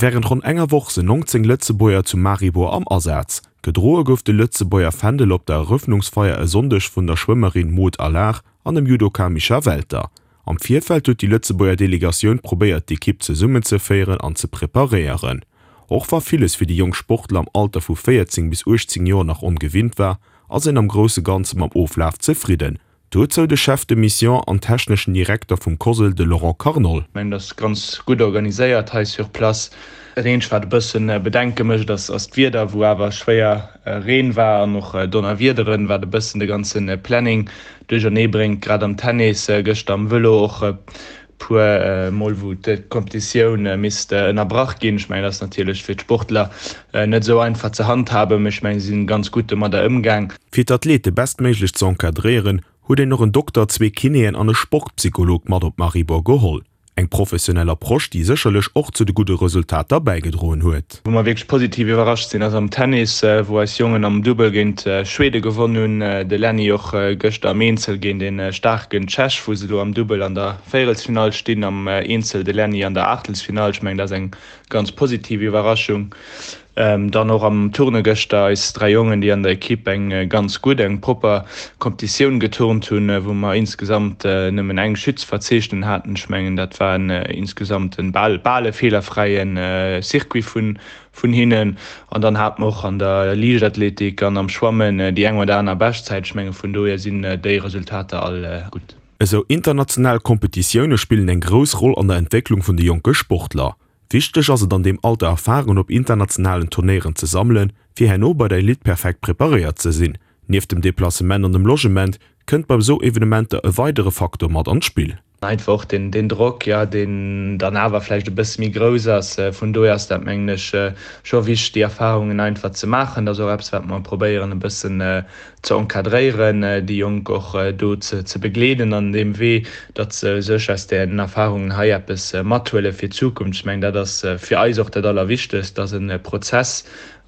Wärend ronn enger Woch sinn 19 Lëtzebuerger zu Maribor am Asaz. Gedroe gouf de Lëtzebuerger Fändel op der Erëffnungsfeier e Sonndeg vun der Schwëmmerin Maud Allard an dem Judoka Micha Welter. Am Virfeld huet déi Lëtzebuerger Delegatioun probéiert d'Ekipp zesummenzeféieren an ze preparéieren. Och wa villes fir déi jonk Sportler am Alter vu 14 bis 18 Joer nach ongewinnt war, ass een am grousse Ganze mam Oflaf zefridden. Dozou de Chef de Mission an techneschen Direkter vum COSL, de Laurent Carnol. Ech mengen, dat ass ganz gutt organiséiert hei sur place. Dat eenzegt, wat e bësse Bedenke mécht, ass d'Wieder, wou awer schwéier Reen war an och Donnerwiederen, wat e bëssen de ganze Planning duerchernee bréngt. Grad am Tennis, gëschter am Vëlo och e puer Mol, wou d'Kompetitioun misst ënnerbrach ginn. Ech mengen, dat ass natierlech fir d'Sportler net esou einfach ze handhaben, mee ech mengen, si sinn ganz gutt domadder ëmgaang. Fir d'Athlete bestméiglech ze encadréieren, huet een och en Dokter, zwee Kinéen an e Sportpsycholog mat op Maribor geholl. Eng professionell Approche, déi sécherlech och zu de gudde Resultater bäigedroen huet. Wou mer wierklech positiv iwwerrascht sinn, ass am Tennis, wou eis Jongen am Dubbel géint Schwede gewonn hunn. De Lenny och gëschter am Eenzel géint ee staarken Tschech, wou se elo am Dubbel an der Véierelsfinall stinn, am Eenzel de Lenny an der Aachtelsfinall. Ech mengen, dat ass eng ganz positiv Iwwerraschung. Dann och am Turne gëschter eis 3 Jongen, déi an der Ekipp eng ganz gutt, eng propper Kompetitioun geturnt hunn, wou mer insgesamt nëmmen eng Chute ze verzeechnen haten. Ech mengen, dat war en insgesamt en bal bal e feelerfräie Circuit vun vun hinnen. An dann hate mer och an der Liichtathletik an am Schwammen déi eng oder aner Beschtzäit. Ech menge vun dohier sinn déi Resultater all gutt. Esou international Kompetitioune spillen eng grouss Roll an der Entwécklung vun de jonke Sportler. Wichteg ass et an deem Alter Erfarungen op internationalen Turnéieren ze sammelen, fir herno bei der Elite perfekt preparéiert ze sinn. Nieft dem Deplacement an dem Logement kënnt bei esou Evenementer e weidere Faktor mat an d'Spill. Einfach och den Drock, jo, deen dann awer vläicht e bësse méi grouss ass. Vun dohier ass dat, mengen ech, scho wichteg, déi Erfarungen einfach ze maachen. Dat ass och eppes, wat mer probéieren e bëssen ze encadréieren, déi Jonk och do ze begleeden an deem Wee, datt se sech aus den Erfahrungen hei eppes mathuele fir d'Zukunft. Ech mengen, dat ass fir eis och dat Allerwichtegst. Dat ass e Prozess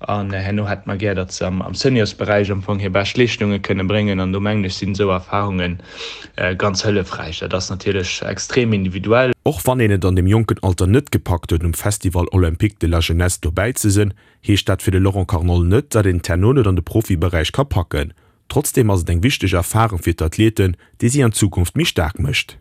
an herno hätte mer gär, datt se am Seniorsberäich am Fong hir bescht Leeschtunge kënne bréngen an do mengen ech sinn esou Erfahrunge ganz hëllefräich. Dat ass natierlech extrem individuell. Och wann een et an deem jonken Alter net gepackt huet um Festival Olympique de la Jeunesse dobäi ze sinn, heescht dat fir de Laurent Carnol net, datt een et herno net an de Profiberäich ka packen. Trotzdeem ass et eng wichteg Erfarung fir d'Athleten, déi si an Zukunft méi staark mécht.